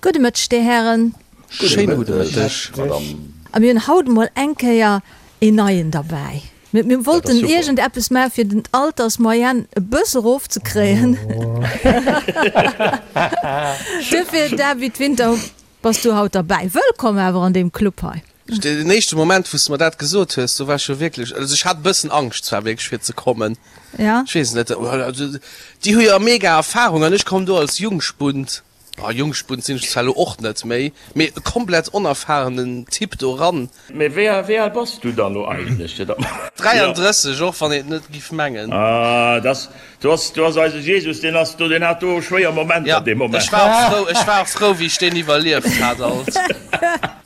Gudde Mëtteg, Dir Hären. Schéine gudde Mëtteg, Madame. A mir hunn haut emol eng Kéier een Neien derbäi. Mir wollten iergend eppes maachen, fir den d'Altersmoyenne e bësse erofzekréien. Duerfir, David Winter, bass du haut derbäi. Wëllkomm awer an deem Club hei. Den éischte Moment, wou s de mer dat gesot hues, do war ech jo wierklech, also ech hat e bëssen Angscht zwar wierklech fir ze kommen. Ja. Ech weess net, déi hu jo mega Erfahrung an ech komm do als Jungspund. Ah, Jungspund sinn ech zwar elo och net méi, mee e komplett onerfahrenen Typ do ran. Mee wéi wéi al bass du dann elo eigentlech, fir datt mer. 33, och wann een et net giff mengen. Ah, dass, du ass, du ass eise Jesus, deen ass do, deen hat do schwéier Momenter dee Moment. Ech war och frou, ech war och frou, wéi ech deen iwwerlieft hat alt.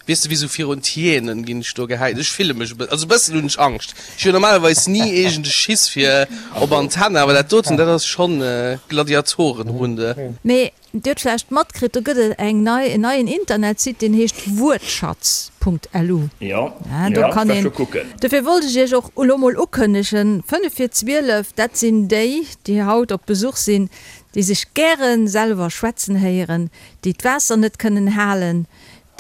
Weess de, wéi sou virun d'Hyänen ginn ech do gehäit. Ech fille mech e bëssen, also e bëssen hunn ech Angscht. Ech hunn normalerweis ni iergend e Schiss fir op Antenn, awer dat doten, dat ass schonn Gladiatorenrunde. Mee Dir hutt vläicht matkritt, do gëtt et eng nei, en neien Internetsite, deen heescht Wuertschatz.lu. Jo, jo, ech war scho kucken. Dofir wollt ech Iech och elo mol ukënnegen, 5 vir 12, dat sinn déi, déi haut op Besuch sinn, déi sech gäre selwer schwätzen héieren, déi d'Waasser net kënnen halen,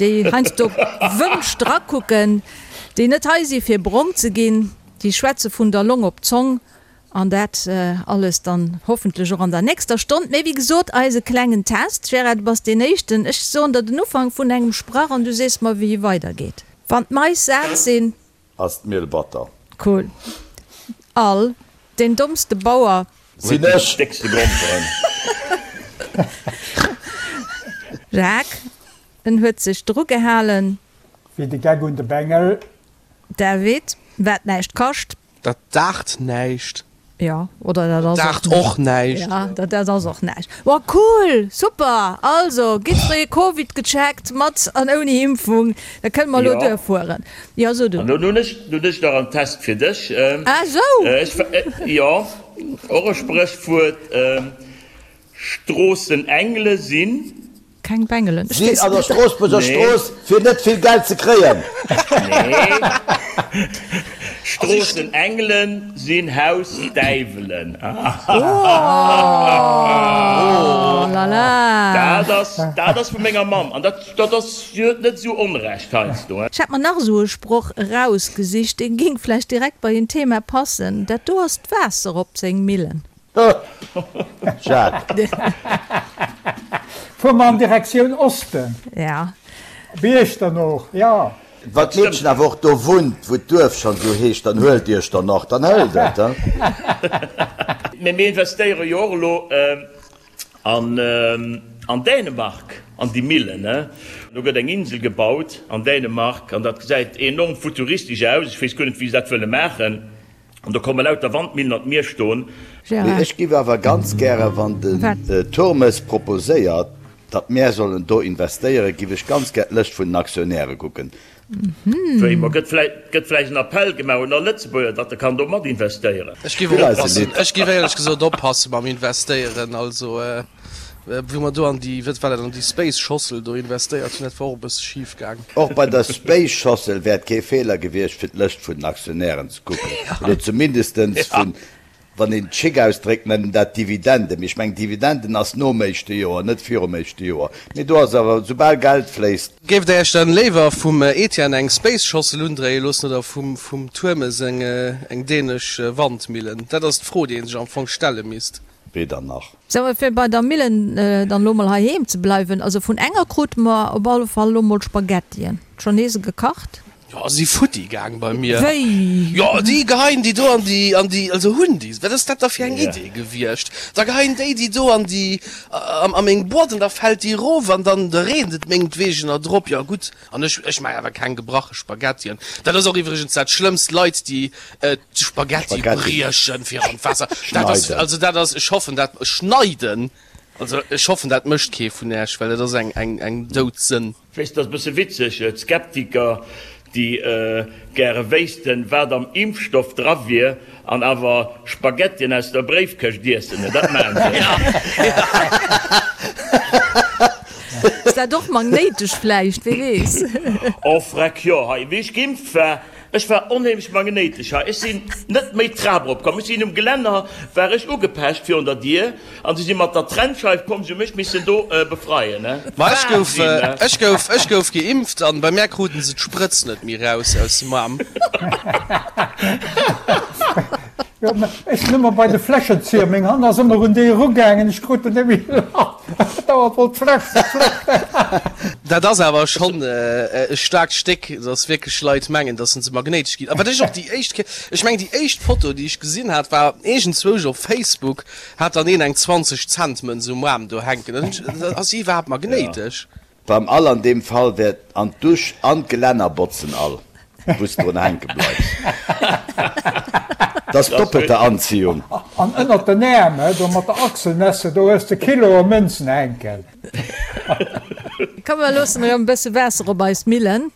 déi heiansdo Wënsch drakucken, déi net hei si fir brong ze ginn, déi schwätze vun der Long op d'Zong an dat alles dann hoffentlech och an der nächster Stonn. Mee wéi gesot, eise klengen Test. Gérard, du bass deen Éischten. Ech soen der den Ufank vun engem Sprach an du sees mer wéi e weidergeet. Wann d'Mais sat sinn. Ass d'Miel batter. Cool. All, Deen dommste Bauer. Sinn ech. Déckste Gromperen. Jacques, En huet sech dru gehalen. Wéi de Geck un de Bengel. David, Wat näischt kascht. Dat daacht näischt. Jo, oder dat ass Daacht och näischt. Ja, dat dat ass och näischt. Wa cool, super! Also, gitt fréi Covid gecheckt, mat an ouni Impfung, da kënne mer elo duerfueren. Jo, so du. An nun hunn ech, nun hunn ech nach en Test fir dech. Ah sou! Ech, jo, och e Spréchwuert, Stroossenengele sinn. Keng Bengelen. Sinn an der Stroossbuerger Strooss fir net vill Geld ze kréien. Nee. Stroossenengelen sinn Hausdäiwelen. Oh la la. Dat ass, dat ass vu menger Mamm. An dat, dat ass, si huet net esou Onrecht heiansdo. Ech hat mer nach esou e Sproch erausgesicht, dee géing vläicht direkt bei en Thema passen, Dat do ass d'Waasser op seng Millen. Jacques. Fuer mer an Direktioun Osten. Ja. Op Iechternooch, jo. Wann d'Meedchen awer och do wunnt, wou d'Duerf schonn esou heescht, dann huelt Iechternach, dann hëlt et, he. Mee mir investéiere jo och elo an Dänemark, an déi Millen, he. Do gëtt eng Insel gebaut an Dänemark an dat gesäit enorm futuristesch aus. Ech weess guer net, wéi se dat wëlle maachen. An do komme lauter Wandmillen an d'Mier stoen. Mee ech giff awer ganz gäre, wann den Turmes proposéiert, datt mär sollen do investéieren, giff ech ganz gär d'Lëscht vun den Aktionäre kucken. Wéi? Ma gëtt vläicht, gëtt vläicht en Appell gemaach un all Lëtzebuerger, datt e kann do mat investéieren? Ech giff och oppassen, ech giff éierlech gesot oppasse mam Investéieren. Also Wou mer do an déi, wat war dat, an déi Space-Schossel do investéiert hunn, dat war och e bësse schif gaang. Och bei der Space-Schossel wär et kee Feeler gewiescht, fir d'Lëscht vun den Aktionären ze kucken, oder zumindestens vun, wann een et schick ausdréckt, nennen dat Dividenden. Mee ech mengen, Dividenden ass nom éischte Joer, net virum éischte Joer. Mee do ass awer, soubal Geld fléisst. Géift Der Iech dann léiwer vum Etienne eng Space-Schossel undréie loossen oder vum Turmes eng dänesch Wandmillen? Dat ass d'Fro, déi ee sech am Fong stelle misst. Weder nach. Sou, fir bei der Millen dann elo mol heiheem ze bleiwen, also vun enger krute mer op alle Fall elo mol Spaghettien. Schon nees gekacht? Jo, si futti gaang bei mir. Wéi? Jo, déi geheien déi do an déi, an déi, also hunn déi, wat ass dat da fir eng Idee gewiescht? Da geheien déi déi do an déi, a meng Boîte an da fält déi erof an dann reent et mengetwegener drop. Jo gutt, an ech, ech maachen awer keng gebrache Spaghettien. Dat ass och iwwregens dat Schlëmmst, Leit déi D'Spaghetti briechen fir an d'Waasser. Dat ass, also dat ass, ech hoffen dat, schneiden, also ech hoffen dat mécht kee vun Äech, well dat ass eng, eng, eng Doudsënn. Weess, dat ass e bësse witzeg, d'Skeptiker, déi gäre wéissten, wat am Impfstoff dra wier, an awer Spaghettien aus der Bréifkëscht iessen, dat maachen se. Ass dat och magnéitesch vläicht, wee weess? Oh freck, jo, hei, wéi ech geimpft war. Ech war onheemlech magnéitesch hei. Ech sinn net méi d'Trap erop komm. Ech sinn um Gelänner, war ech ugepecht virun der Dier an se si mat der Trennscheif komm, se hu mech missen do befreien. Ma ech gouf, ech gouf, ech gouf geimpft an bei mär kruten se d'Sprëtz net méi raus aus dem Aarm. Jo, mä ech sinn ëmmer bei de Fläschenzieher, meng Hand ass ëmmer un déi erugaangen, ech krut en net méi lass, dauernd wollt d'Fläsch, d'Fläsch. Dat ass awer schonn e staarkt Stéck, dass wierklech Leit mengen, dass se magnéitesch ginn. A wat ech och déi éischt Kéier, ech mengen déi éischt Foto, déi ech gesinn hat, war iergendzwousch op Facebook, hat dann een eng 20 Cent Mënz um Aarm do hänken. Dann hunn ech, ass si iwwerhaapt magnéitesch? Beim all an deem Fall wäert an d'Dusch an d'Gelänner botzen all, wou s drun hänke bleifs. Dat ass doppelte Anziehung. An ënnert den Äerm, do mat der Achselnesse, do hues de Kiloe Mënzen hänken. Komm mer loossen erëm e bësse Waasser op eis Millen.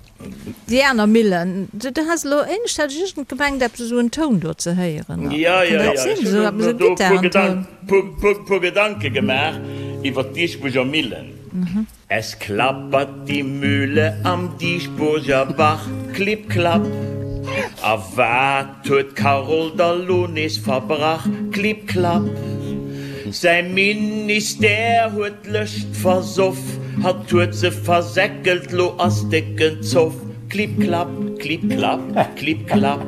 Déi aner Millen, du has elo éinescht, hat ech iergend gemengt eppes esou en Toun do ze héieren. Jo, jo, jo, ech hunn mer do e puer Gedanke gemaach iwwer d'Diesbuerger Millen. Es klappert die Mühle am Dieschburger Bach, klipp klapp. A wat huet d'Carole da lo nees verbrach, klipp klapp. Säi Ministère huet d'Lëscht versoff, hatt huet se versäckelt, lo ass décken Zoff, klipp klapp, klipp klapp, klipp klapp.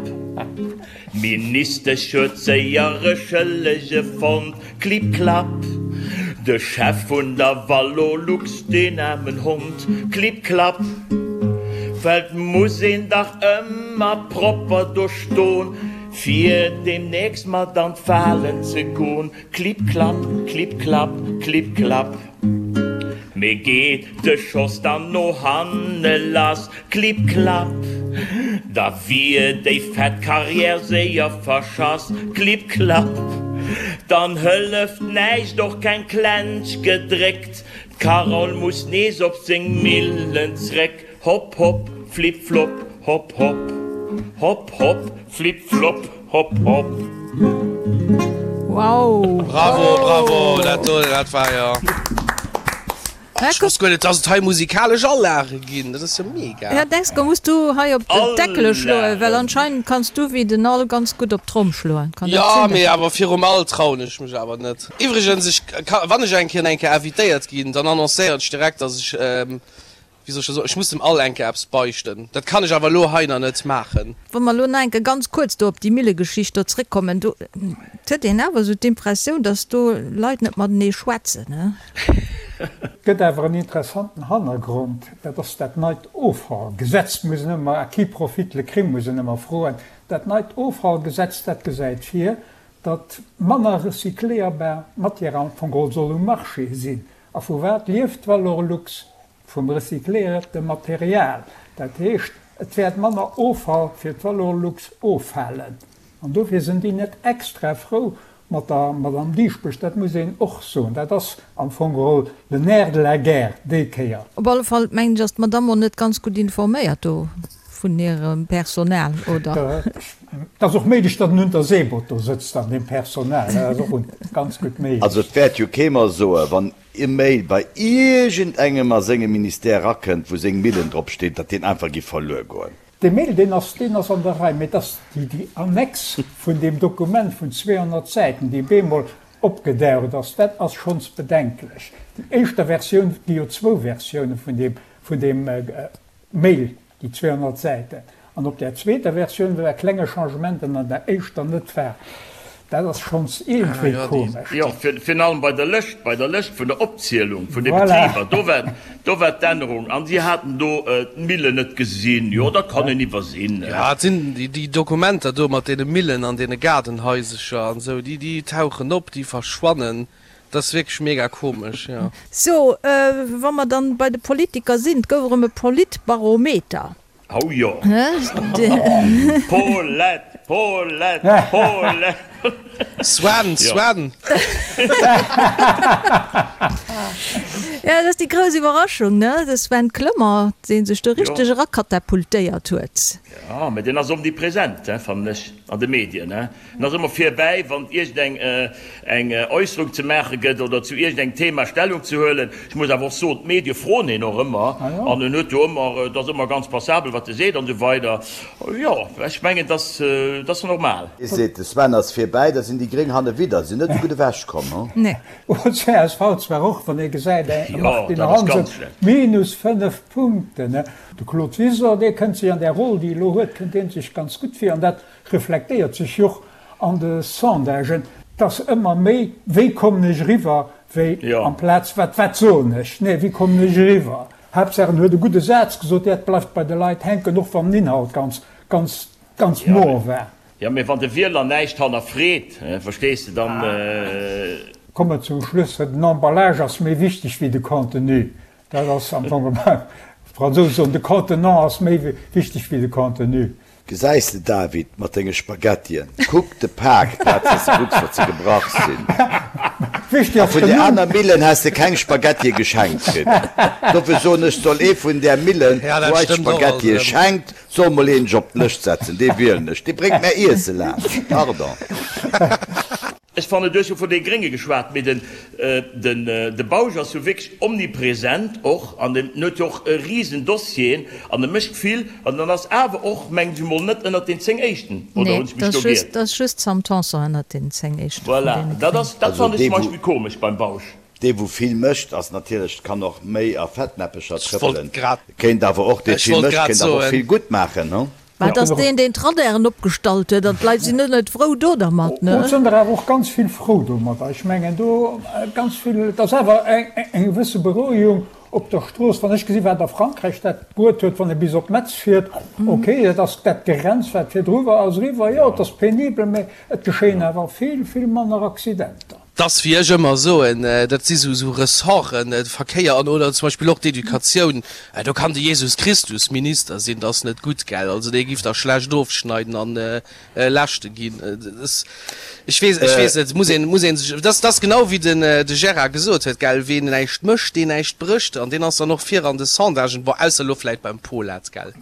D'Ministesch huet séier e Schëllege fonnt, klipp klapp. De Chef vun der Valorlux, deen aarmen Hond, klipp klapp. Well 't muss een dach ëmmer propper do ston, fir deemnächst mat an d'Walen ze gon, klipp klapp, klipp klapp, klipp klapp. Mee geet de Schoss dann no hanne lass, klipp klapp, da wier déi fett Carrière séier verschass, klipp klapp. Dann hëlleft näischt, och keng Klensch gedréckt, d'Carole muss nees op seng Millen zréck, hopp hopp, flipp flopp, hopp hopp, hopp hopp, flipp flopp. Hopp hopp. Wow! Bravo, bravo, dat do, dat war jo. Ech wosst guer net, dass et hei musikalesch Alage ginn. Dat ass jo mega. Ja, Dexco, muss du hei op d'Deckele schloen, well anscheinend kanns du wéi den Al ganz gutt op d'Tromm schloen. Kann dat Jo, sinn? mee awer virum Al trauen ech mech awer net. Iwwregens, ech ka, wann ech eng Kéier eng Kéier invitéiert ginn, dann annoncéieren ech direkt, dass ech, Wéi soll ech dat soen? Ech muss dem Al enke eppes beichten. Dat kann ech awer elo hei nach net maachen. Wa mer elo nach enke ganz kuerz do op déi Millegeschicht do zréckkommen, do huet een awer esou d'Impressioun, datt do Leit net matenee schwätzen, ne? Gëtt awer en interessanten Hannergrond, dat ass dat neit Offallgesetz. Muss een ëmmer, à qui profite le crime, muss een ëmmer froen. Dat neit Offallgesetz, dat gesäit vir, datt manner recycléierbar Matière am Fong geholl soll um Marché sinn. A vu wat lieft d'Valorlux? Vum recycléierte Material. Dat heescht, et wäert manner Offall fir d'Valorlux offalen. An dofir sinn déi net extra frou mat der Madame Dieschbourg, dat muss een och soen. Dat ass am Fong geholl le nerf de la guerre déi Kéier. Op alle Fall mengen ech, ass d'Madame och net ganz gutt informéiert do vun hirem Personal, oder? Et ass och méiglech, datt en Unterseeboot do sëtzt an deem Personal. Dat ass och ganz gutt méiglech. Also et wäert jo kee mer soen, wann e Mail bei iergendengem a sengem Ministère erakënnt, wou seng Millen drop steet, datt deen einfach giff verluer goen. Dee Mail, deen ass, deen ass an der Rei, mee et ass déi, déi Annex vun deem Dokument vun 200 Säiten, déi bemol opgedaucht ass, dat ass schonns bedenklech. Déi éischter Versioun, et gi jo zwou Versioune vun deem, vun deem Mail, Déi 200 Säiten. An op där zweeter Versioun, wou e klenge Changement an der éischter net war, dat ass schonns iergendwéi komesch. Jo, virun allem bei der Lëscht, bei der Lëscht vun der Opzielung vun de Betriber, do war, do war d'Ännerung. An si haten do d'Millen net gesinn. Jo, dat kann een iwwersinn. Jo, et sinn déi Dokumenter do mat deene Millen an deene Gaardenhaisercher an esou, déi, déi tauchen op, déi verschwannen. Dat ass wierklech mega komesch, jo. So, wa mer dann bei de Politiker sinn, 't gouf erëm e Politbarometer. Oh jo! Paulette, Paulette, Paulette! Sven, Sven! Ja, dat ass déi grouss Iwwerraschung, ne? De Sven Clement, dee sech do richteg erakatapultéiert huet. Jo, mä deen ass omnipresent, fannen ech, an de Medien, ne? En ass ëmmer virbäi, wann et iergend eng Äusserung ze maache gëtt oder zu iergend engem Thema Stellung ze huelen. Ech muss awer och soen, d'Medie froen hien och ëmmer an en huet jo ëmmer, et ass ëmmer ganz passabel, wat e seet an esou weider. Jo, ech mengen, dat ass normal. Ee seet, de Sven ass virbäi, da sinn déi Gréng hanne widder, sinn net esou gutt ewechkomm, hu? Nee. Oh, csv zwar och, wann ee gesäit, de Martine Hansen, minus 5 Punkten. De Claude Wiseler, dee kënnt sech an där Roll, déi e elo huet, kënnt dee sech ganz gutt vir. An dat reflektéiert sech jo och an de Sondagen, et ass ëmmer méi, wéi kommen ech eriwwer, wéi amplaz wat, wat soen ech, nee, wéi kommen ech eriwwer. Haaptsaach en huet e gudde Saz gesot, dat bleift bei de Leit hänken, och wann den Inhalt ganz, ganz, ganz moer war. Jo, mee wann de Wieler näischt hannerfreet, verstees de, dann. Komme zum Schluss, den Emballage ass méi wichteg wéi de Contenu. Dat ass am Fong, d'Fransousen soen, de Contenant ass méi wichteg wéi de Contenu. Gesäis de David, mat denge Spaghettien, kuck de Pak, plaz dass de kucks wat se gebrach sinn. A vun där aner Millen häss de keng Spaghettie geschenkt kritt. Dofir soen ech, soll ee vun där Millen, wou eis Spaghettie schenkt, soll mol een sech op d'Lëscht setzen, dee wielen ech, dee bréngt mär Iesse laanscht. Pardon. Ech fannen, du hues jo vun de Grénge geschwat, mee den de Bausch ass jo wierklech omnipresent och an en huet jo och e risen Dossieren an e mécht vill an en ass awer och, mengen ech emol, net ënnert den 10 éischten, oder hunn ech mech do giert? Nee, dat ass just d'Sam Tanson ënnert den 10 éischte vun Voilà, deene dat ass, Gréngen. dat fannen ech zum Beispill komesch beim Bausch. Dee wou vill mécht ass natierlech, kann och méi a Fettnäppecher trëppelen, kéint awer och, dee vill mécht, kéint awer och vill gutt maachen, hu? Mä et ass deen, deen d'Radaren opgestallt huet, an d'Leit sinn net frou do dermat, ne? Et sinn der awer och ganz vill frou domadder. Ech mengen do ganz vill, et ass awer eng gewësse Berouegung op der Strooss. Wann ech gesi wat a Frankräich dat bruet huet, wann ee bis op Metz fiert, okay, dat ass dat Gerenns wat virdru war, ass eriwwer. Jo, et ass penibel, mä et geschéien awer vill, vill manner Accidenter. 't ass wéi ech ëmmer soen, dat si sou Ressorten, de Verkéier an oder zum Beispill och d'Educatioun, do kann de Jesus Christus Minister sinn, 't ass net gutt, gell? Also dee giff da schlecht ofschneiden an Leschte ginn. Ech weess, ech weess net, muss een, muss een sech, dat ass genau wéi den de Gérard gesot huet, gell, ween näischt mécht, deen näischt brécht an deen ass dann och vir an de Sondagen, bon, ausser elo vläit beim Polat, gell?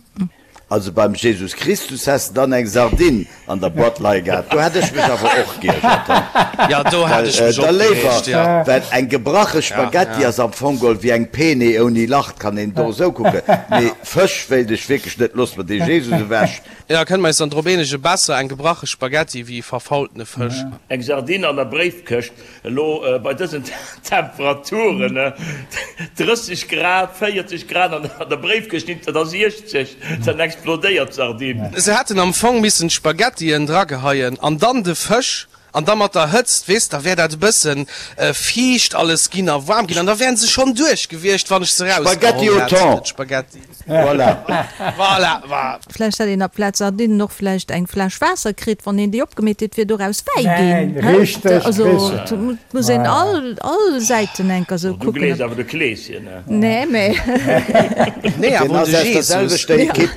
Also beim Jesus Christus häss de dann eng Sardinn an der Boîte leie gehat, do hätt ech mech awer och geiergert, he? Jo, do hätt ech mech och Well da léiwer, gereegt, jo. well eng gebrache Spaghetti ass am Fong geholl wéi eng Pene ouni Lach, kann een do esou kucken, mee Fësch wéilt ech wierklech net, looss mer dee Jesus ewech. Jo, kënne mer eis dann drop eenegen, besser eng gebrache Spaghetti wéi e verfaultene Fësch. Eng Sardinn an der Bréifkëscht, Elo bei dësen Temperaturen, 30 Grad, 40 Grad an der Bréifkëscht, dat ass 60, dann explodéiert d'Sardinn. Se hätten am Fong missen d'Spaghettien drageheien an dann de Fësch an da mat der Hëtzt, weess, da wär dat e bëssen fiicht alles ginn a waarm ginn an da wären se schonn duerch gewiescht, wann ech se Spaghetti rausgeholl au hätt, thon! d'Spaghetti. Voilà. Voilà, voilà. Vläicht hätt een aplaz Sardinnen och vläicht eng Fläsch Waasser kritt, wann een déi opgemeet huet, wier doraus Wäi ginn. Wäin, richteg, Also richteg. et muss een all, all Säiten enker sou Du kucken. gleefs awer de Kleeschen, ne? Nee, mee. Nee, Deen awer un ass de aus der Jesus. selwechter Ekipp.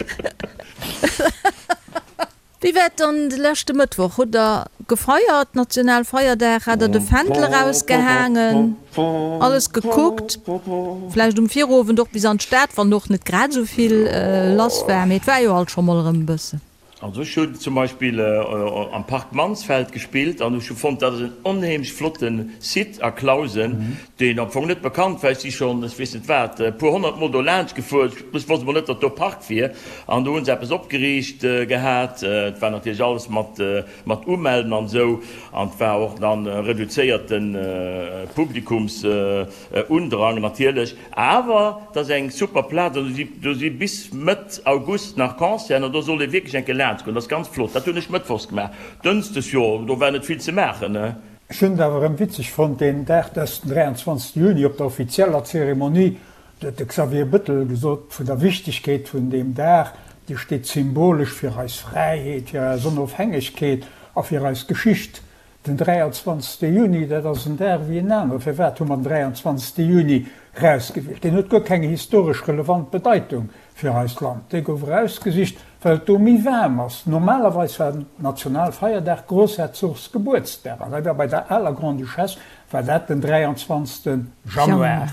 Wéi war et dann de leschte Mëttwoch? Hutt der gefeiert, Nationalfeierdag? Hat der de Fändel erausgehaangen, alles gekuckt, vläicht um Virowend och bis an d'Stad, wann och net grad esou vill lass war, mee et war jo alt scho mol erëm e bëssen. Also ech hunn zum Beispill am Park Mansfeld gespillt an ech hu fonnt, dat ass en onheemlech flotte Site a Clausen, deen am Fong net bekannt war. Ech si schonn, ech weess net wat, e puer honnertmol do laanscht gefuer, ech wosst emol net, datt do Park wier. An do hu se eppes opgeriicht gehat. Et war natierlech alles mat mat Umelden an esou an et war och dann reduzéierte Publikumsundrang natierlech. Awer et ass eng super Plaz an do si bis Mëtt August nach Concerten an do sollt ee wierklech eng Kéier laanscht goen. Dat ass ganz flott. Dat hunn ech mëttwochs gemaach. Dënschdes, jo, do war net vill ze maachen. Ech hunn et awer erëm witzeg fonnt, deen Dag, dat ass den 23 Juni, op der offizieller Zeremonie, do huet de Xavier Bettel gesot, vun der Wichtegkeet vun deem Dag, dee steet symbolesch fir eis Fräiheet, fir eis Onofhängegkeet a fir eis Geschicht. Den 23. Juni, dat ass en Dag wéi en anere. Firwat hu mer den 23. Juni rausgewielt? Deen huet guer keng historesch relevant Bedeitung fir eist Land. Dee gouf erausgesicht, well et do méi waarm ass. Normalerweis war den Nationalfeierdag Grossherzogsgebuertsdag, an dat war bei der aler Grande-Duchesse war dat den 23. Januar,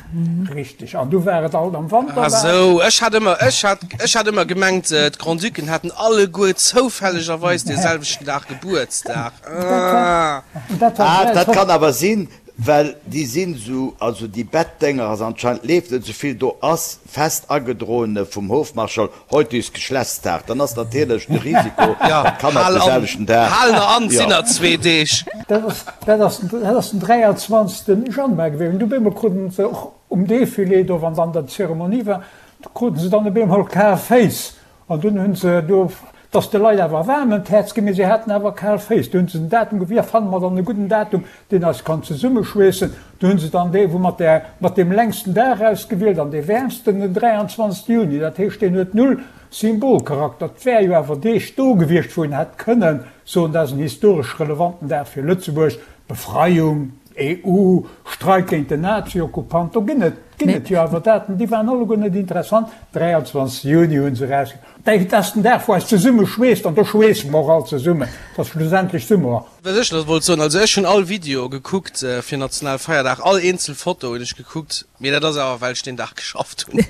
richtig. An du war et alt am Wanter Ah waarm. sou, ech hat ëmmer, ech hat, ech hat ëmmer gemengt, d'Grand-Ducken hätten alleguer zoufällegerweis dee selwechten Dag Gebuertsdag. Ah. Dat war, Ah, dat kann awer sinn, Well déi sinn esou, also déi Bettdénger ass anscheinend, leeft net esou vill, do ass fest agedroene vum Hofmarschall, heute ist Geschlechtstag, dann ass natierlech de Risiko, datt d'Kanner op de selwechten Dag, Hal der an, sinn der zwee Deeg. Dat ass, dat ass, dat ass den 23. Januar gewiescht. An du op eemol kruten se och um Defilé do, wann dann d'Zeremonie war, do kruten se dann op eemol kal Féiss. An dunn hunn se do, 't ass de Leit awer waarm ëm d'Häerz ginn, mee se haten awer kal Féiss. Du hunn se den Datum gewien, fanne mer dann e gudden Datum, deen eis kann zesummeschweessen. Du hunn se dann dee wou mat där, mat deem längsten Dag ausgewielt an dee wäermsten, den 23 Juni. Dat heescht, deen huet null Symbolcharakter. 't wär jo awer Deeg do gewiescht, wou een hätt kënnen soen, dat ass en historesch relevanten Dag fir Lëtzebuerg, Befreiung, EU, Streik géint den Nazi-Okkupant, do ginn et ginn et jo awer Daten, déi waren alleguer net interessant. 23 Juni hu se erausginn. Dat ass den Dag, wou eis zesumme schweesst, an do schweesse mer och all zesummen. Et ass schlussendlech Summer. Wat ech nach wollt soen, also ech hunn all Video gekuckt fir Nationalfeierdag, all eenzel Foto hunn ech gekuckt, mee dat ass awer well ech deen Dag geschafft hunn.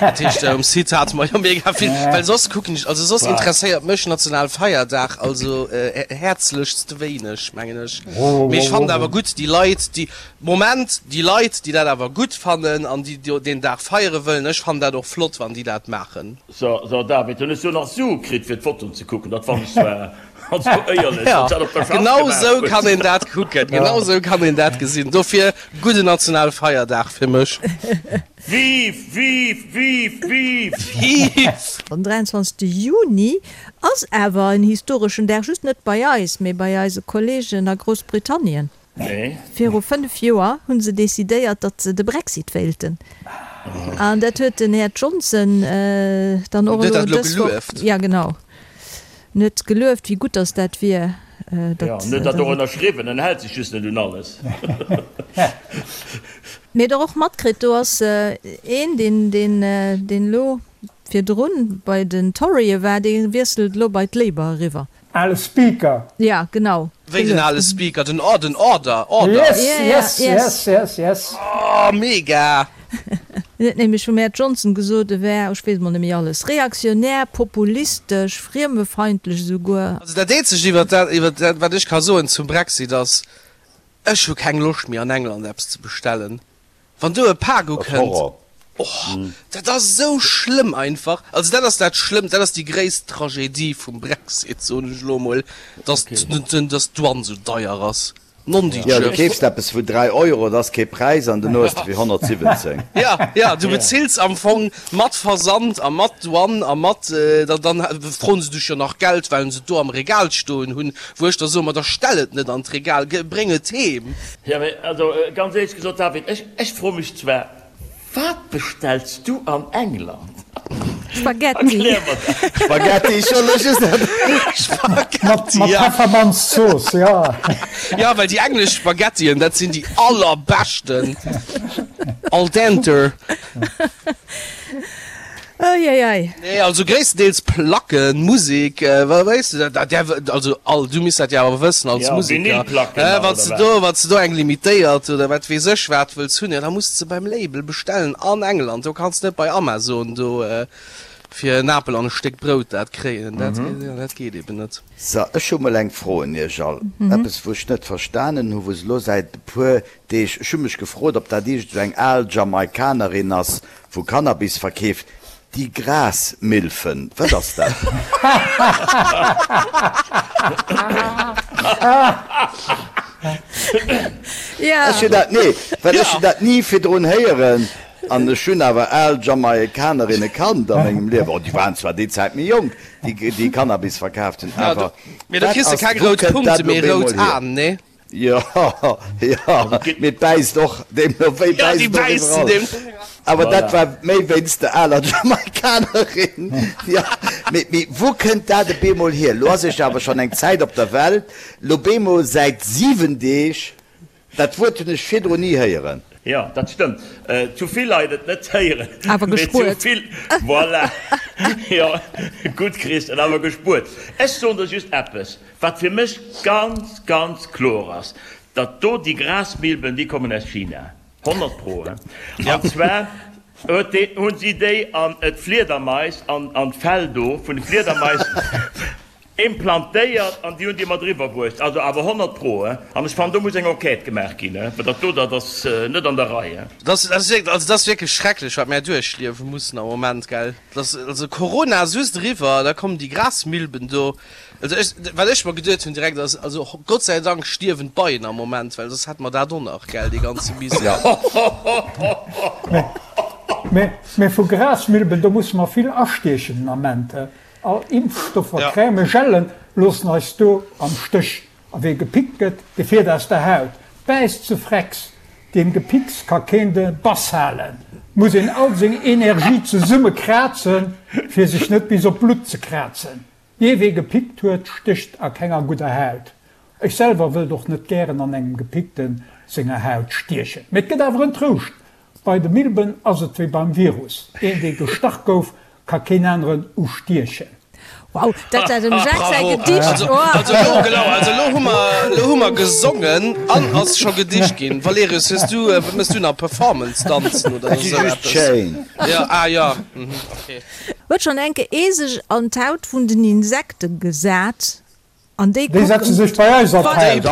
Dat heescht um Site hate mer jo mega vill, well soss kucken ech, also soss interesséiert mech Nationalfeierdag also häerzlechst wéineg, mengen ech. Mee ech fannen awer gutt déi Leit déi, Moment, déi Leit déi dat awer gutt fannen an déi deen Dag feiere wëllen, ech fannen dat och flott wann déi dat maachen. So, so David, hunn ech do nach Sue kritt fir d'Fotoen ze kucken? Dat fannen ech zwar, also éierlech, wann s dat op der Schaff Genau gemaach sou hues. kann een dat kucken, genau sou kann een dat gesinn. Dofir gudden Nationalfeierdag fir mech. Vive, vive, vive, vive! Vive! Den 23. Juni ass awer en historeschen Dag, just net bei eis, mee bei eise Kolleegen a Groussbritannien. Nee. Viru 5 Joer hu se decidéiert, datt se de Brexit wéilten. An dat huet den Här Johnson dann och elo dës Woch, ja genau, en huet gelueft, wéi gutt datt dat wier. Jo, en huet dat och ënnerschriwwen, en hält sech just net un alles. Mee der och matkritt, do ass een, deen, deen, deen elo virdrun bei den Torye war, dee wiesselt elo bei d'Labour eriwwer. Ale Speaker. Ja, genau. Wéi den ale Speaker, den Or, den Order, Order. Yes, yes, yes, yes, yes. Oh, mega! En huet nämlech vum Här Johnson gesot, e wär, ech weess mol net méi alles, reaktionär, populistesch, friemefeindlech esouguer. Also dat eenzegt iwwert dat, iwwert dat wat ech ka soen zum Brexit ass, ech hu keng Loscht méi an England eppes ze bestellen. Wann do e Pak ukënnt, oh, dat ass esou schlëmm einfach. Also dat ass dat Schlëmmst, dat ass déi gréisst Tragedie vum Brexit, soen ech elo emol, dass dass d'Douane esou deier ass. Jo, du keefs eppes vu 3 Euro, dat ass kee Präis, an duerno hues de fir 117. Jo, jo, du bezills am Fong mat Versand a mat Douane a mat, dann froen se dech jo nach Geld, well se et do am Regal stoen hunn, wou ech da soen, ma da stell et net an d'Regal, bréng et heem. Jo, mee also ganz éierlech gesot, David, ech, ech froe mech zwar, wat bestells du an England? Spaghetti. Erklär mer dat. Spaghetti, ech wollt elo just dat. Spaghetti, Mat ja. Peffermanzsauce, jo. Jo, well déi englesch Spaghettien, dat sinn déi allerbeschten. Al dente. Eieiei. Nee, also gréisstendeels Placken, Musek, weess de, dat, dat, also all, du misst dat jo awer wëssen als Ja, Museker, Vinylplacken nach, wann s oder de wat? do, wann s de do eng limitéiert oder wat weess ech wat wëlls hunn, jo da muss de se beim Label bestellen an England, do kanns de net bei Amazon do fir en Apel an e Stéck Brout dat kréien, dat, jo, dat geet eben net. So, ech hu mol eng Fro un iech all, eppes wou ech net verstanen hu, wou se elo säit e puer Deeg, ech hu mech gefrot, ob dat iergend esou eng al Jamaikanerin ass, wou Cannabis verkeeft, déi Grasmilfen, wat ass dat? Ech hunn dat, nee, well ech hunn dat ni virdrun héieren an ech hunn awer al Jamaikanerinne kannt a mengem Liewen, oh, déi waren zwar déi Zäit méi jonk, déi déi Cannabis verkaaft hunn, awer Mee da wat kriss de ass, keng wou rout kënnt Punkte, dat elo mee op rout eemol hier? Aen, nee? Jo, jo, mee et bäisst och, deemno wéi Ja, déi bäisst et och bäissen iwwerall. deem. Awer dat war méi wéinst der aler Jamaikanerin. Jo, mee wou kënnt dat e beemol hier? Lo ass ech awer schonn eng Zäit op der Welt, lo beemol säit 7 Deeg, dat Wuert hunn ech virdrun ni héieren. Jo, dat stëmmt. Zu vill Leit et net héieren. Awer gespuert. Mee zu vill, voilà. Jo, gutt Christian, awer gespuert. Ech soen der just eppes, wat fir mech ganz, ganz kloer ass, datt do déi Grasmilben, déi kommen aus China. 100 pro, he? An zwar huet dee, hunn si déi an d'Fliedermais, an an d'Fell do vun de Fliedermais implantéiert an déi hunn déi mat eriwwer bruecht. Also awer 100 pro, he? An ech fannen, do muss eng Enquête gemaach ginn, he? Well dat do, dat ass net an der Rei, he? Dat ass, also dat ass wierklech schrecklech, wat mär duerchliewe mussen am Moment, gell? Dat ass, also Corona ass just eriwwer, da kommen déi Grasmilben do. Also ech, wat ech mer geduet hunn direkt ass, also Gott sei Dank stierwen d'Beien am Moment, well soss hätte mer dat och nach, gell, dee ganze Misär. Mä, mä vu Grasmilben, do musse mer vill astiechen den Ament. All Impfstoffer, Crèmen, Gellen loossen eis do am Stéch. A wee gepickt gëtt, dee fiert aus der Haut, bäisst ze frecks. Deem Gepicks ka keen de Bass halen. Muss een all seng Energie zesumme krazen, fir sech net bis op d'Blutt ze krazen. Jee, wee gepickt huet, stécht a kenger gudder Haut. Ech selwer wëllt och net gären an engem Gepickten senger Haut stiechen. Mee et gëtt awer en Trouscht, Bei de Milben ass et wéi beim Virus, een dee gestach gouf, ka keen aneren ustiechen. Wow, dat war dem Jacques säi Gedicht! Bravo! Also elo, genau, also elo hu mer, elo hu mer gesongen an ass scho Gedicht ginn. Valerius, hues du, wat méchs du nach, Performance danzen oder esou eppes? Jo, ah jo, mhm, okay. Huet schon enke ee sech an d'Haut vun den Insekten gesat an déi Déi setze sech bei eis an d'Haut.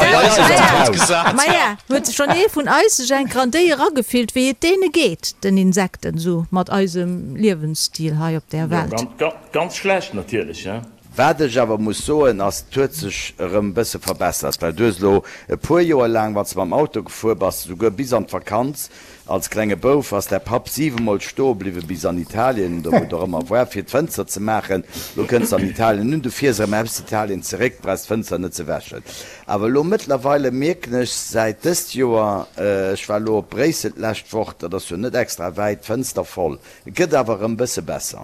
Maja, huet schon ee vun eis sech enker an déi eragefillt, wéi et deene geet, den Insekten, sou mat eisem Liewensstil hei op där Welt? Jo, ganz schlecht natierlech, he. Wat ech awer muss soen ass, et huet sech erëm e bësse verbessert, well du hues elo e puer Joer laang, wann s de mam Auto gefuer bass, souguer bis an d'Vakanz, Als klenge Bouf ass däi Papp siwemol stoe bliwwe bis an Italien, oder wou et och ëmmer war, fir d'Fënster ze maachen. Lo kënns de an Italien un, du fiers erëm aus Italien zeréck, brauchs d'Fënster net ze wäschen. Awer elo mëttlerweile mierken ech säit dëst Joer, ech war elo op Bréissel d'lescht Woch, dat ass jo net extra wäit, d'Fënster voll. Et gëtt awer erëm bësse besser.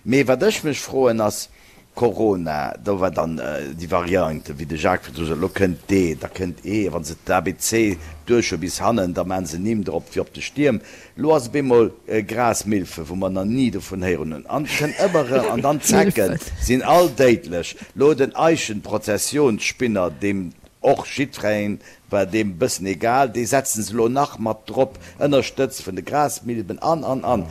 Mee wat ech mech froen ass, Corona, do war dann déi Variante, wéi de Jacques virdru sot, elo kënnt D, da kënnt E, a wa se d'ABC duerch hu bis hannen, da maache se Nimm drop wéi op de Stierm. Elo ass op eemol Grasmilfe, wou mer nach ni dovun héieren hunn, an et kënnt ëmmer erëm, an dann d'Zecken sinn all déidlech. Elo den Eichenprozessionsspinner, deem och jiddwereen war deem bëssen egal, dee setzen se elo nach mat drop, ënnerstëtzt vun de Grasmilben an, an, an.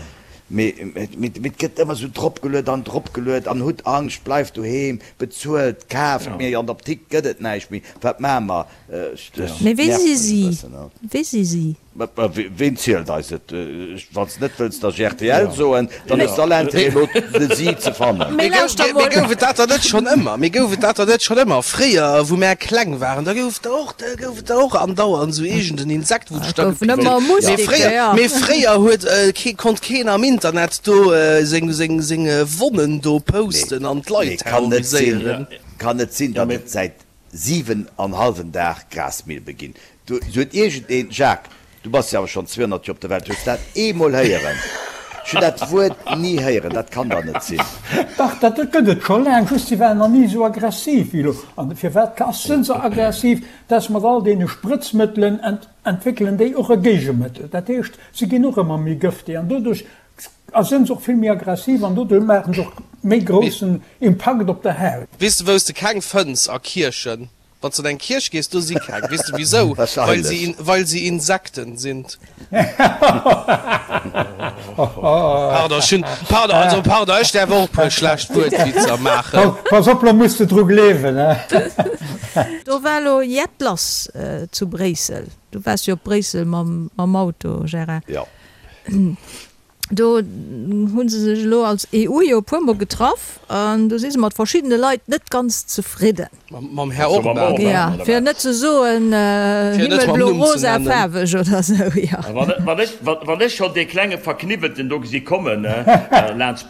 Mee et gëtt ëmmer esou dropgeluet an dropgeluet an hutt Angscht, bleift doheem, bezuelt, kaaft, mee an der Apdikt gëtt et näischt méi, wat maache mer? Mee wee si si? Wee si si? Ween zielt eis et? Wann s de net wëlls datt ech rtl soen, dann hues de all Intérêt elo de si ze fannen. Mee lauschter mol. Mee gouf et dat dann net schonn ëmmer? Mee gouf et dat dann net schonn ëmmer? Fréier, wou mär kleng waren, da gouf et der och, da gouf et der och andauernd esou iergend en Insekt, wou dech da gepickt huet. Mee fréier, mee fréier huet kee, konnt keen am Internet do seng, seng, seng Wonnen do posten an d'Leit terroriséieren. Kann net sinn, datt et säit 7 an hallwen Dag Grasmilbe ginn. Du huet iergend een, Jacques, du bass jo awer schonn 200 Joer op der Welt, hues dat eemol héieren? Ech hunn dat Wuert ni héieren, dat kann dach net sinn. Dach, dat gëtt et scho laang, just si waren nach ni esou aggressiv wéi elo. An firwat ass sënn se aggressiv? Dass mat all deene Sprëtzmëttelen entwéckelen déi och e Géigemëttel. Dat heescht, se ginn och ëmmer méi gëfteg an doduerch A sënn se och vill méi aggressiv an doduerch maachen se och méi groussen Impakt op der Haut. Weess de wous de keng fënns? A Kierchen. Wanns de an eng Kierch gees, do si keng. Weess de wisou? Well se, well se Insekten sind. Pardon, ech hunn, pardon, also pardon, ech däerf och e puer schlecht Wuertwitzer maachen. Pass op, lo muss de dru gleewen, he. Do war lo jett lass zu Bréissel. Du waars jo op Bréissel mam Auto, Gérard. Jo. Do hu se sech elo als EU jo e puer mol getraff an do si se mat verschiddene Leit net ganz zefridden. Mam Här Orban? Jo, fir net ze soen himmelblo rosa faarweg oder esou, jo. Wann ech schonn dee klenge Verkniwwelten do gesi kommen, laanscht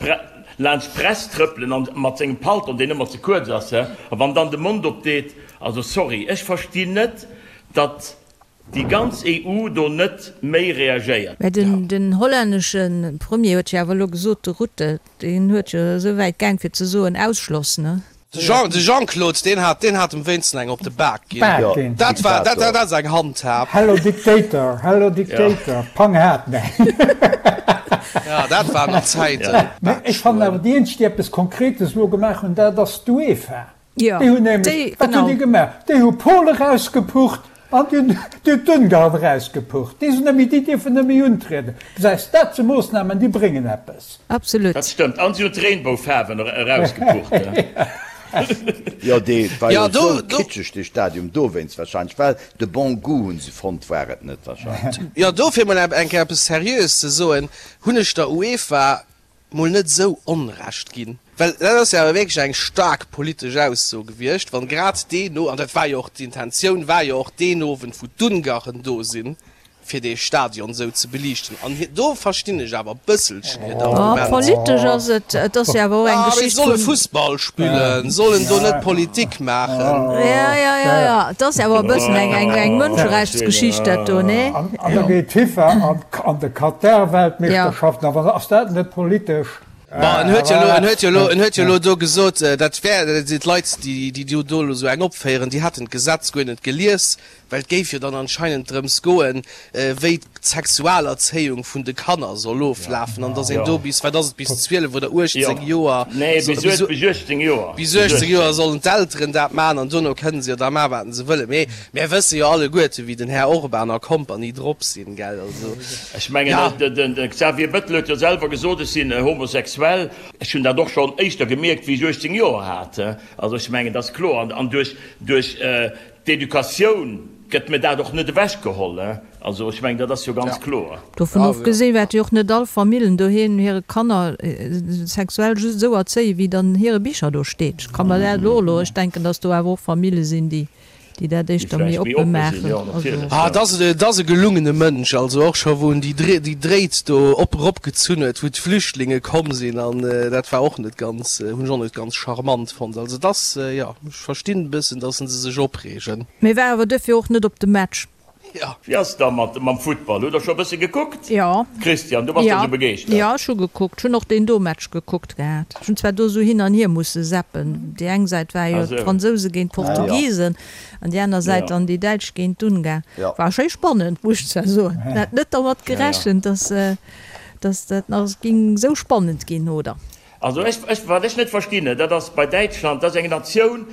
d'Press trëppelen an mat sengem Paltong, deen ëmmer ze kuerz ass, a wann dann de Mond opdeet, also sorry, ech verstinn net, datt. Déi ganz EU do net méi reagéiert. Mä den hollännesche Premier huet jo awer elo gesot, de Rutte, deen huet jo esou wäit gaang fir ze soen, Ausschloss, ne? De Jean, de Jean-Claude, deen hat, deen hat em wéinsten eng op de Bak ginn. Bak ginn. Dat war, dat, dat ass eng Handhab. Hello Dictator, hello Dictator, pang hat, nee. Ja, dat waren nach Zäiten. Mä ech fannen awer, déi eenzeg, déi eppes Konkretes elo gemaach hunn, dat ass d'UEFA. Jo, Déi hunn nämlech, déi, wat hunn genau. déi gemaach? Déi hu Polen erausgepucht an déi hunn, déi hunn d'Ungarn erausgepucht. Déi sinn net méi, déi dierfen net méi untrieden. Gesäis, dat si Moossnamen, déi bréngen eppes. Absolut. Dat stëmmt. An si hunn d'Regenboufaarwen erausgepucht. Jo, dee war jo Ja, do, esou do. kitscheg, dee Stadium, dowéinst wahrscheinlech, well de bon goût hunn se fonnt, war et net wahrscheinlech. Jo, dofir mol eng Kéier eppes Seriöes ze soen, hunn ech der UEFA mol net esou Onrecht ginn, well dat ass jo awer wierklech eng staark politesch Ausso gewiescht, wann grad deen No, an dat war jo och d'Intentioun war jo och deen Owend wou d'Ungarn do sinn, fir dee Stadion esou ze beliichten, an hir, do verstinn ech awer e bësselchen hiert Oh, Argument. politesch ass et, et ass jo awer och eng Ah, mee Geschicht solle vun. Fussball spillen, sollen do net Politik maachen. Ja, ja, ja, ja, et ass awer e bëssen eng, eng, eng Mënscherechtsgeschicht dat do, nee? An da geet d'FIFA an de Katar-Weltmeeschterschaften, awer ass dat net politesch? Bon, en huet jo elo, en huet jo elo, en huet jo elo do gesot, dat wär, d'Leit, déi, déi do elo esou eng opféieren, déi hätten d'Gesetz guer net gelies, Well et géif jo dann anscheinend drëms goen, wéi d'Sexualerzéiung vun de Kanner soll oflafen an dass een do bis, wat ass et, bis 12 oder 18 Joer, Nee, bis 18 Joer. Bis 18 Joer sollen d'Elteren dat maachen an dono kënnen se jo da maachen, wat se wëllen. Mee mär wësse jo alleguerte wéi den Här Orban a Kompanie drop sinn, gell? Also, Ech mengen, de Xavier Bettel huet jo selwer gesot, ech sinn homosexuell. Ech hunn dat och schonn éischter gemierkt, wéi ech 18 Joer hat. Also ech mengen, dat ass kloer. An duerch D'Educatioun gëtt mir dat och net ewech geholl, he. Also ech mengen, dat ass jo ganz kloer. Dovun ofgesinn wäerte jo och net all Famillen doheem hire Kanner sexuell just esou erzéien, wéi et an hire Bicher do steet. Ech ka mer dat elo elo, ech denken, datt do awer och Famille sinn, déi déi dat éischter méi oppe maachen. Also. Ah, et ass, et ass e gelungene Mënsch, also och scho wou en déi déi Dréit do op eropgezunn huet, wou d'Flüchtlinge komm sinn, an dat war och net ganz, hunn ech och net ganz charmant fonnt. Also et ass, jo. Ech verstinn e bëssen, dass se sech opreegen. Mee war awer duerfir och net op de Match. Jo. Wéi ass da mat mam Futtball? Hutt der scho e bësse gekuckt? Jo. Christian, du bass der sou begeeschtert. Jo, ech hu gekuckt. Ech hunn och deen do Match gekuckt gehat. Ech hunn zwar do sou hin an hier musse zappen. Déi eng Säit war jo d'Fransouse géint d'Portugisen an déi aner Säit dann déi Däitsch géint d'Ungarn. War schéi spannend, muss ech zwar soen. Hat net dermat gerechent, dass dass dat nach ging sou spannend ginn, oder? Also ech, ech, wat ech net verstinn, dat ass bei Däitschland, dat ass eng Natioun,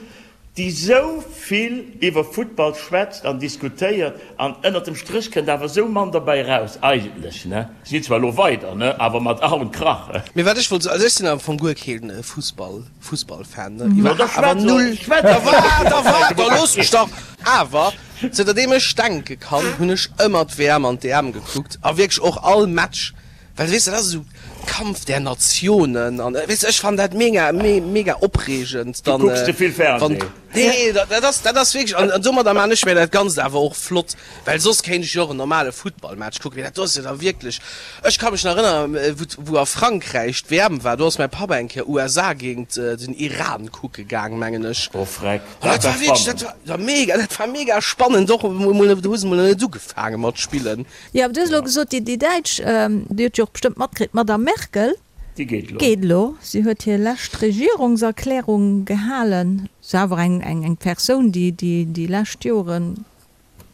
déi esou vill iwwer Futtball schwätzt an diskutéiert an ënnert dem Stréch kënnt awer esou mann derbäi eraus eigentlech, ne. Si sinn zwar elo weider, ne, awer mat Ach und Krach. Mee wat ech wollt soen, also ech sinn am Fong guer keen Fussball, Fussballfan, ne, No da awer schwätz null, och, schwätz da och waart, da waart, da looss mech dach, awer zënterdeem ech denke kann, hunn ech ëmmer d'WM an d'EM gekuckt a wierklech och all Match. Well weess de, dat ass esou Kampf der Nationen an weess de, ech fannen dat mega, mega opreegend Du dann, kucks ze vill wann, Fernseh. nee, dat ass, dat ass wierklech, an domadder maan ech mir dat Ganzt awer och flott, well soss kéint ech jo och en normale Futtballmatch kucken, mee dat do ass jo da wierklech, ech ka mech nach erënneren, wou, wou a Frankräich d'WM war, do ass mäi Papp eng Kéier USA géint den Iran kucke gaang, mengen ech. Oh freck, An dat dat war war wierklech, dat spannend. war, ja mega, dat war mega spannend och, emol, do hu se mol nach net ugefaange mat spillen. Jo, awer du hues elo gesot, déi Däitsch, Dir hutt jo och bestëmmt matkritt, d'Madame Merkel Déi geet elo. geet elo. Si huet hir lescht Regierungserklärung gehalen. Se awer eng eng Persoun, déi déi lescht Jore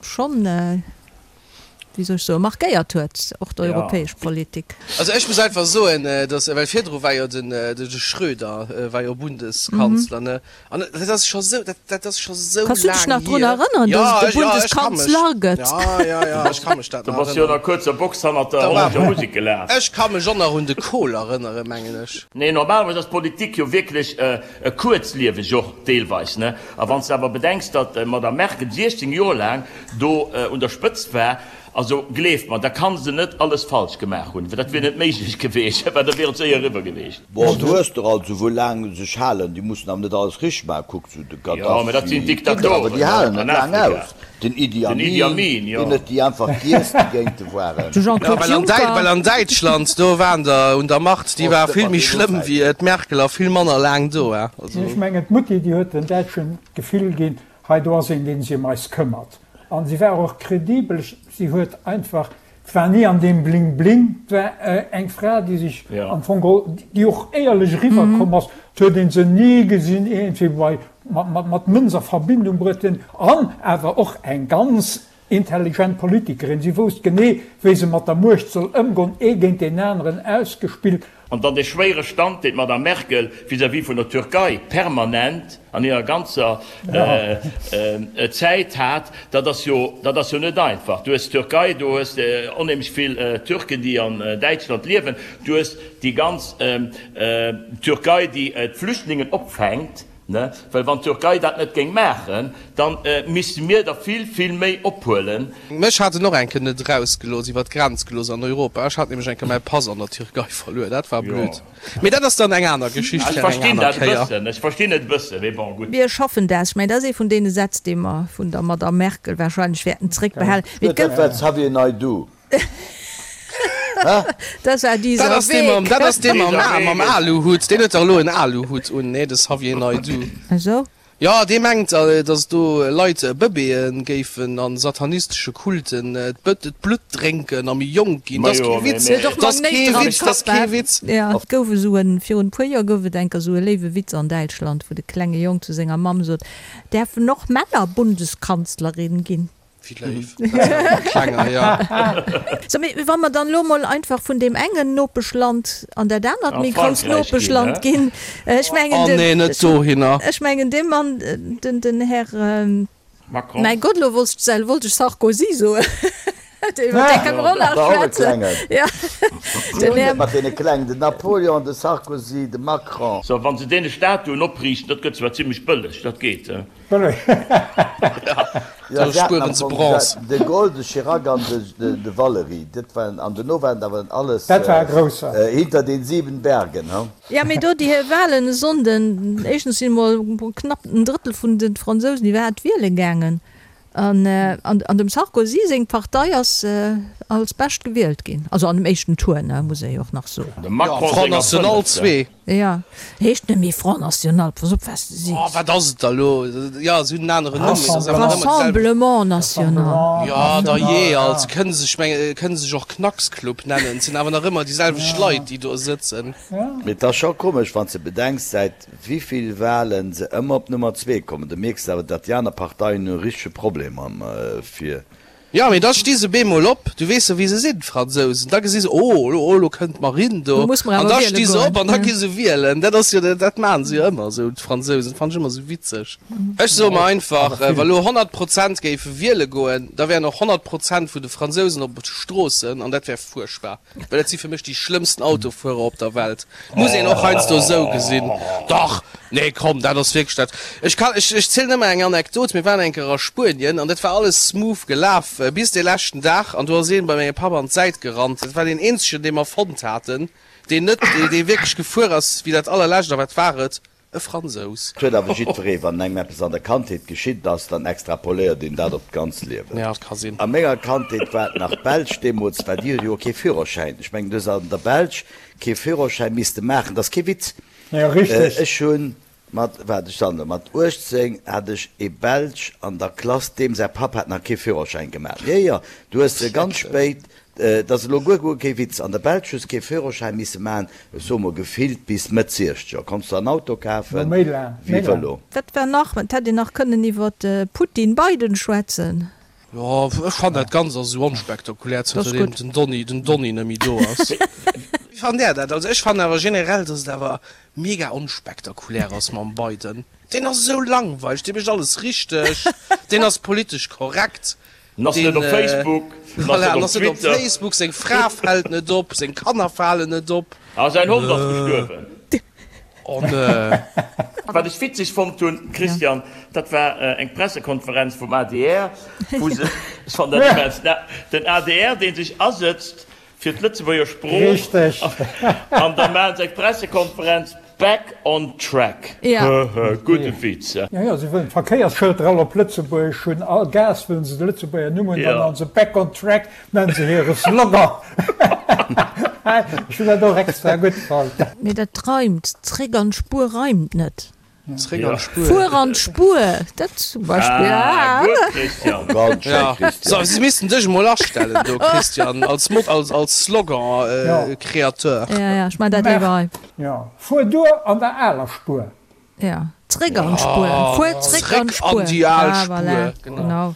schonn, wéi soll ech soen, markéiert huet, och d'europäesch Politik. Also ech muss einfach soen, datt, well virdru war jo den de Schröder war jo Bundeskanzler, ne? An dat ass scho sou, dat, dat ass scho sou Kanns du dech laang nach drun hier. erënneren, Ja, dass et e ech, ja, ech ka mech. Bundeskanzler gëtt? Ja, ja, ja, ech ka mech dat Du nach bass jo an erënneren. der kuerzer Box hannert der Da war, hollännescher Musek gelaf. ech ka mech och nach un de Kohl erënneren, mengen ech. Nee, normalerweis ass Politik jo wierklech kuerzlieweg och deelweis, ne? A wann s de awer bedenks, datt d'Madame Merkel 16 Joer laang do un der Spëtzt war, Also gleeft mer, da kann se net alles falsch gemaach hunn, well dat wier net méiglech geweecht, well da wier et séier eriwwer geweecht. Bon, du hues der also wou laang sech halen, déi mussen awer net alles richteg maachen, kuck sou de Jo, mä dat sinn Gaddafi, awer Diktatoren déi halen an et laang Afrika. aus, den Idi Den Idi Amin, Amin, jo. deen huet déi einfach giess, déi géint e waren. De Ja, Jean-Claude well an Däi, Juncker. well an Däitschland, do waren der un der Macht, déi Oh, war stimmt, vill mat méi deenen schlëmm Zäiten. wéi d'Merkel a vill manner laang do, he, also. Ech mengen, d'Mutti, déi huet den Däitschen d'Gefill ginn, hei do ass een, dee sech ëm eis këmmert. An si war och kredibel. Si huet einfach, et war ni an deem Bling Bling, et war eng Fra, déi sech am Fong geholl, déi och éierlech eriwwerkomm ass. Et huet ee se ni gesinn iergendwéi bei, mat Mënz a Verbindung bruet hunn. An awer och eng ganz intelligent Politikerin. Si wousst genee, wéi se mat der Muecht soll ëmgoen, ee géint deen aneren ausgespillt. An dann dee schwéiere Stand, deen d'Madame Merkel vis-à-vis vun der Türkei permanent an hirer ganzer Zäit hat, dat ass jo, dat ass jo net einfach. Du hues d'Türkei, du hues onheemlech vill Türken, déi an Däitschland liewen, du hues déi ganz Türkei, déi d'Flüchtlingen opfänkt. Well wann d'Türkei dat net géing maachen, da misste mir der vill, vill méi ophuelen. Mech hat en och eng Kéier net erausgelooss, iwwer d'Grenz gelooss an Europa. Ech hat nämlech eng Kéier mäi Pass an der Türkei verluer. Dat war blöd. Mee dat ass dann eng aner Geschicht fir eng aner Kéier. Ech verstinn et e bëssen, mee bon, gutt. Mir schaffen dat. Ech mengen, dat ass ee vun deene Sätz, dee mer vun der Madamm Merkel wahrscheinlech wäerten zréckbehalen. Mee et gouf. Dat war Xavier Naidoo. Dat war dieser Dat ass dee mam, dat ass dee mam, mam Aluhut. Deen huet dach elo en Aluhut un, nee, de Xavier Naidoo. Esou? Jo, dee mengt, datt do Leit Bëbeeë géifen a satanistesche Kulten d'Blutt drénken a méi jonk ginn. Dat ass kee Witz, dat ass kee Witz, dat ass kee Witz. Et gouf esou en, virun e puer Joer gouf et enker esou e léiwe Witz an Däitschland, wou de klenge Jong zu senger Mamm sot, Däerfen och Männer Bundeskanzlerin ginn? Wéi léif. Klenger, ja. So, mee wa mer dann elo mol einfach vun deem engen Nopeschland an dat anert méi grousst Nopeschland ginn, ech mengen, Oh nee, net dohinner. Ech mengen, dee Mann, den, den Här, Macron. Mäi Gott, elo wollt ech, wollt ech Sarkozy soen, iwwer dee kënne mer och nach schwätzen. Ja, den Här. Mat deene Klengen, den Napoleon, de Sarkozy, de Macron. So, wa se deene Statuen opriichten, dat gëtt zwar zimlech bëlleg, dat geet. Jo, se haten am Fong de Gaulle, de Chirac an de Valéry, dat waren, an dono waren et awer alles hinter den sieben Bergen, he? Jo, mee do déi Wahlen e Sonnden, éischtens sinn emol knapp en Drëttel vun de Fransousen iwwerhaapt wiele gaangen, an an dem Sarkozy seng Partei ass als bescht gewielt ginn, also an dem éischten Tour, ne, muss ee jo och nach soen. Dem Macron Front senger National fënnefte. zwee. Jo, heescht net méi Front National, pass op wat s de sees. Oh, wat ass et da elo? Jo, se hunn en aneren Numm, mee et ass awer nach ëmmer deselwechten. Rassemblement National. Jo, da jee, alt. Se kënne sech, meng, kënne sech och Knacksclub nennen. Et sinn awer nach ëmmer déi selwecht Leit, déi do sëtzen. Mee et ass scho komesch, wann s de bedenks, säit wivill Wahlen se ëmmer op Nummer zwee kommen. Du mierks awer, datt déi aner Parteien hunn e richtege Problem mam fir. Jo, mee da sti se bemol op, du weess jo wéi se sinn, d'Fransousen, da gesi se, oh, elo, elo kënnt d'Marine do, Lo muss mer an awer da wiele sti se goen. op an da gi se wielen. Dat ass jo, dat maachen se jo ëmmer esou, d'Fransousen, fannen ech ëmmer esou witzeg. Ech soe mer einfach, wa lo 100 Prozent géife wiele goen, da wären och 100 Prozent vun de Fransousen op de Stroossen an dat wär fuerchtbar. Well dat si fir mech déi schlëmmsten Autofuerer op der Welt. Muss een och heiansdo esou gesinn. Dach! Nee, komm, dat ass wierklech dat. Ech kann, ech, ech zielen ëmmer eng Anekdot. Mir waren eng Kéier a Spuenien an dat war alles smooth gelaf bis dee leschten Dag an do ass een bei mengem Papp an d'Säit gerannt. Dat war deen eenzegen, dee mer fonnt haten, deen net, dee wierklech gefuer ass wéi dat allerlescht. A wat war et? E Fransous. Et huet awer jiddweree, wann engem eppes an der Kandheet geschitt ass, dann extrapoléiert een dat op d'ganz Liewen. Ja, dat ka sinn. A menger Kandheet war et nach d'Belsch deemools, well déi huet jo och kee Führerschäin. Ech mengen, du hues an der Belsch kee Führerschäin misste maachen, dat ass kee Witz. Ja, richteg. Ech hunn mat, waart, ech soen der, mat 18 hat ech ee Belsch an der Klass, deem säi Papp hat nach kee Führerschäin gemaach. Jo, jo, du hues se ganz spéit Et ass elo guer guer kee Witz, an der Belsch hues kee Führerschäin misse maachen, ech soe mol gefillt bis Mëtt Siechzeger konns de en Auto kafen, Méi laang, wéi méi laang. Vëlo. Wat war nach? Et hätt een nach kënnen iwwer Putin-Biden schwätzen. Jo, ech fannen dat Ganzt ass esou onspektakulär, Dat ass zënter deem gutt. den Donny, den Donny net méi do ass. Wéi fannt där dat? Also ech fannen awer generell, dass et awer mega onspektakulär ass mam Biden. Deen ass esou langweileg, dee mécht alles richteg, deen ass politesch korrekt, En ass net op Facebook, en ass net en op ass net op Twitter. Facebook, seng Fra fält net op, seng Kanner falen net op. A säin Hond ass gestuerwen. Oh ne. Wat ech witzeg fonnt hunn, Christian, dat war eng Pressekonferenz vum adr, wou se, ech fannen dat immens, den adr, dee sech asëtzt fir d'Lëtzebuerger Sprooch, an da maachen se eng Pressekonferenz, Back on track. Höhö, gudde Witz. Jo, jo, se wëllen d'Verkéiersschëlter all op Lëtzebuergesch hunn, all Gaass wëllen se de Lëtzebuerger Numm hunn, dann han se Back on track, nennen se hire Slogan. Ech hunn dat och extra gutt fonnt. Mee dat reimt, zréck an d'Spuer reimt net. Zréck an d'Spuer. Fuer an d'Spuer, dat zum Beispill. Ah, gutt, Christian. Ganz schéin, Christian. So, si missten dech emol astellen do, Christian, als Mot, als, als Slogan-Kreateur. Ja, ja, ech man dat léiwer hei. Jo, fuer duer an der aler Spuer. Ja, zréck an d'Spuer. Fuer zréck an d'Spuer. Zréck an déi al Ah, voilà, Spuer, genau. genau.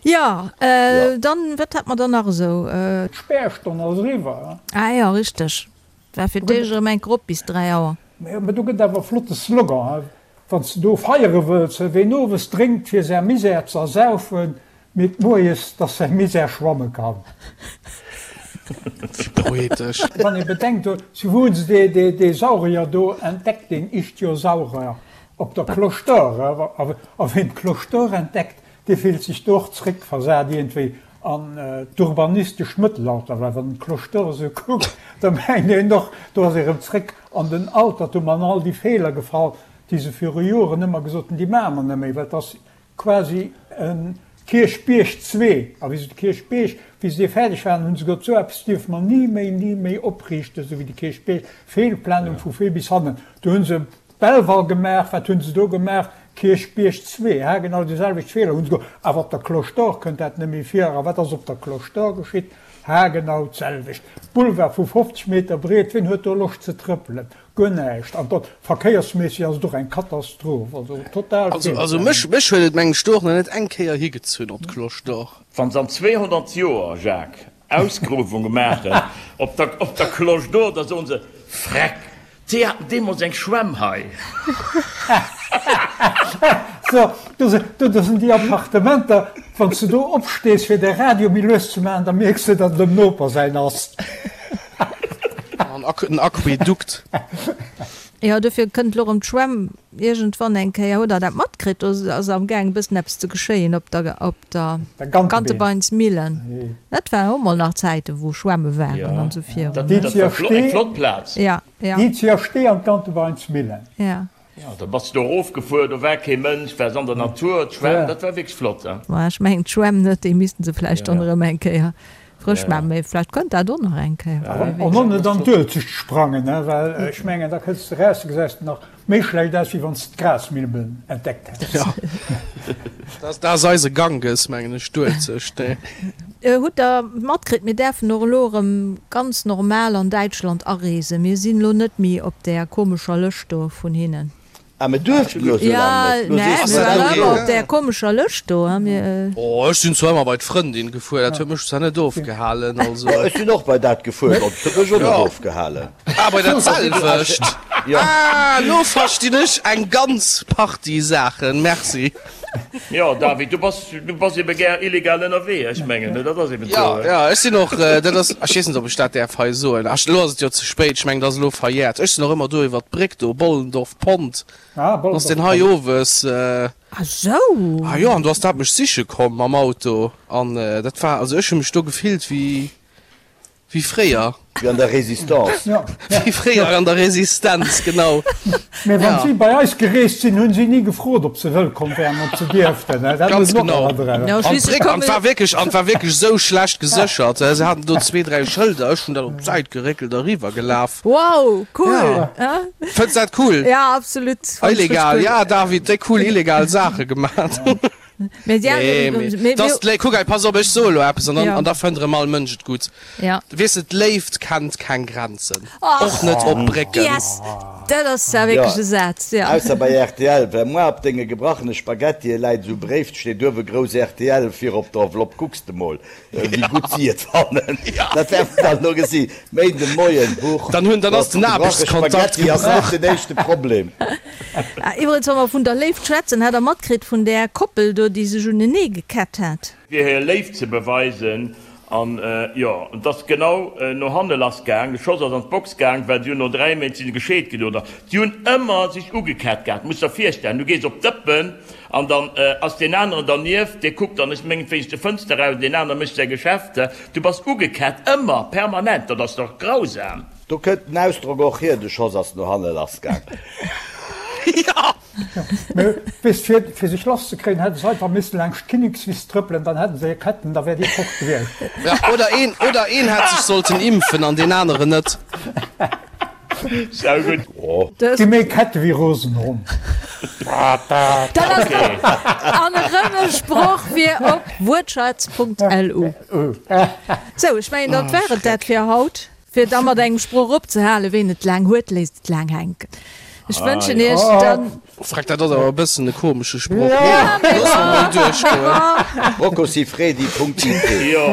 Jo, dann, wat hat mer dann nach esou? D'Spärstonn ass eriwwer. Ah jo, richteg. War fir d'éischt erëm eng Grupp bis 3 Auer. Mä do gëtt awer e flotte Slogan, wann s de do feiere wëlls, Ween owes drénkt fir säi Misär ze ersaufen, mierkt moies, dass säi Misär schwamme kann. Wéi poetesch. Wann ee bedenkt, zu wou hunn se dee Saurier do entdeckt, deen Ichthyosaurier, op der Cloche d'Or. A ween d'Cloche d'Or entdeckt, Dee fillt sech do och zréckversat iergendwéi an d'urbanistescht Mëttelalter, well wann en d'Cloche d'Or esou kuckt, da mengt een och, do ass ee rëm zréck an den Altertum an all déi Feeler gefall, déi se viru Joren ëmmer gesot hunn, déi maache mer net méi, well et ass quasi e Kierchbierg zwee. A wéi se de Kierchbierg, wéi se dee fäerdeg waren, hu se gesot, esou eppes dierfe mer ni méi, ni méi opriichten, esou wéi de Kierchbierg, Feelplanung vu vir bis hannen. Do hu se Belval gemaach, wat hunn se do gemaach? Kierchbierg 2, ha genau déi selwecht Feeler hunn se gemaach, awer op der Cloche d'Or kënnt dat net méi vir. A wat ass op der Cloche d'Or geschitt? Ha genau d'selwecht. Boulevard vu 50 Meter breet, wien huet do Loscht ze trëppelen? Guer näischt. An dat verkéiersméisseg ass et och eng Katastroph, also total Also, also mech, mech huet et mengen ech do och nach net eng Kéier higezunn op d'Cloche d'Or. Wann se an 200 Joer, Jacques, Ausgruewunge maachen op der, op der Cloche d'Or, da soen se, Freck, Déi haten deemols eng Schwämm hei. So, do do sinn déi Appartementer, wann s de do opstees fir de Radio méi lues ze maachen, da mierks de, datt et dem Noper säin ass. An en Aquädukt. Jo, dofir kënnt elo erëm d'Schwämm iergendwann eng Kéier. Hutt Der dat matkritt? Do ass amgaang e bëssen eppes ze geschéien op der op der Gantebeinsmillen. Dat war och mol nach Zäiten, wou Schwämme waren an esou virun. Dat war eng flott Plaz. Ja, ja. Déi zu Stee an d'Gantebeinsmillen. Ja. Jo, da bass de do erofgefuer, do war kee Mënsch, waars an der Natur, d'Schwämm, dat war wierklech flott. Ma ech mengen d'Schwämm net, déi missten se vläicht dann erëm eng Kéier frësch maachen, mee vläicht kënnt dat och nach eng Kéier. An och net an d'Uelzecht sprangen, well ech mengen, da kënns de eraus, da gesäis de nach Méi schlecht aus, wéi wann s de d'Grasmilben entdeckt häss. Jo, dat ass eise Ganges, mengen ech, d'Uelzecht, nee. Hutt der matkritt, mir däerfen och elo erëm ganz normal an Däitschland areesen. Mir sinn elo net méi op där komescher Lëscht do vun hinnen. Ah, mir duerften elo sou laang net. Jo, nee, mir waren ëmmer op där komescher Lëscht do. Oh, ech sinn zwar ëmmer bei d'Frëndin gefuer, dat huet mech zwar net ofgehalen, also. Ech sinn och bei dat gefuer, dat huet mech och net ofgehalen. Ah, bei dat selwecht? Ah, lo verstinn ech eng ganz Partie Saachen. Merci. Jo, David, du bass, du bass ebe gär illegal ënnerwee, ech mengen, dat ass eben esou. Jo, jo, ech sinn och, dat ass, ech weess net, ob ech dat däerf hei soen. Ach, elo ass et jo ze spéit, ech mengen, dat ass elo verjährt. Ech sinn och ëmmer do iwwer d'Bréck do, Bollendorf Pont, ass deen hei owes. Ah sou! Ah jo, an do ass dat mech siche komm mam Auto an dat war, also ech hu mech do gefillt wéi, Wéi fréier. Wéi an der Résistance. Wéi fréier an der Resistenz, genau. Mä wann si bei eis gereest sinn, hunn si ni gefrot, ob se wëllkomm wären, ob se dierften. Dat Ganz genau. An d'Bréck, an d'war wierklech, an d'war wierklech esou schlecht geséchert. Se haten do zwee, dräi Schëlder. Ech hunn dat op d'Säit geréckelt a riwwer gelaf. Wow, cool! Fënns dat cool? Ja, absolut. Illegal, ja David, déi cool illegal Saache gemat. Mee ja, Nee, mee mee dass d'Lé kuck hei, pass op, ech soe lo eppes an dann, an da fënnt erëm all Mënsch et gutt. Ja. Weess de, d'Léift kennt keng Grenzen, Och och net op Brécken. Yes! Dat ass zwar wierklech e Saz, ja. Ausser bei rtl, well moi op denge gebrachene Spaghettie läit esou e Bréif, steet uewe grouss rtl vir op der Enveloppe, kucks de mol. Wéi gutt si et fannen, dat wäerte mer dann elo gesi Méinden de Moien. Huch, Dann hunn, dann ass den Aarbechtskontakt Spaghetti ass net den éischte Problem. Iwwregens, wa mer vun der Léift schwätzen, hat Der matkritt vun där Koppel do, déi sech unenee gekett hat? Fir hir Léift ze beweisen. An jo, et ass genau no hanne lass gaang. De Schoss ass an d'Box gaang, well si hunn no 3 Méint si se gescheet ginn, oder? Si hunn ëmmer sech ugekett gehat. Muss der virstellen, du gees op d'Dëppen An dann ass deen aneren dernieft, dee kuckt dann, ech mengen, wéinst de Fënster eraus, deen anere mécht säi Geschäft. Du bass ugekett, ëmmer, permanent, dat ass dach grausam. Do kënnt den Ausdrock och hier, de Schoss ass no hanne lassgaang. Jo! Mee weess, fir, fir sech lasszekréien, hätte se einfach missen laangscht d'Kinnekswiss trëppelen, dann hätte se hir Ketten, da wär déi fort gewiescht. Ja, oder een, oder een hätt sech sollten impfen an deen aneren net. Saugutt. Gi méi Kette wéi rosen Hond. Dat ass doch an erëm e Sproch fir op wuertschatz.lu. Sou, ech mengen, dat war et dat fir haut. Fir da mat engem Sproch opzehalen, Ween et laang huet, léisst et laang hänken. Ech wënschen Iech dann. Freck, dat ass awer e bëssen e komesche Sproch. Looss mer mol duerchgoen. Roccosifredi.it. Jo.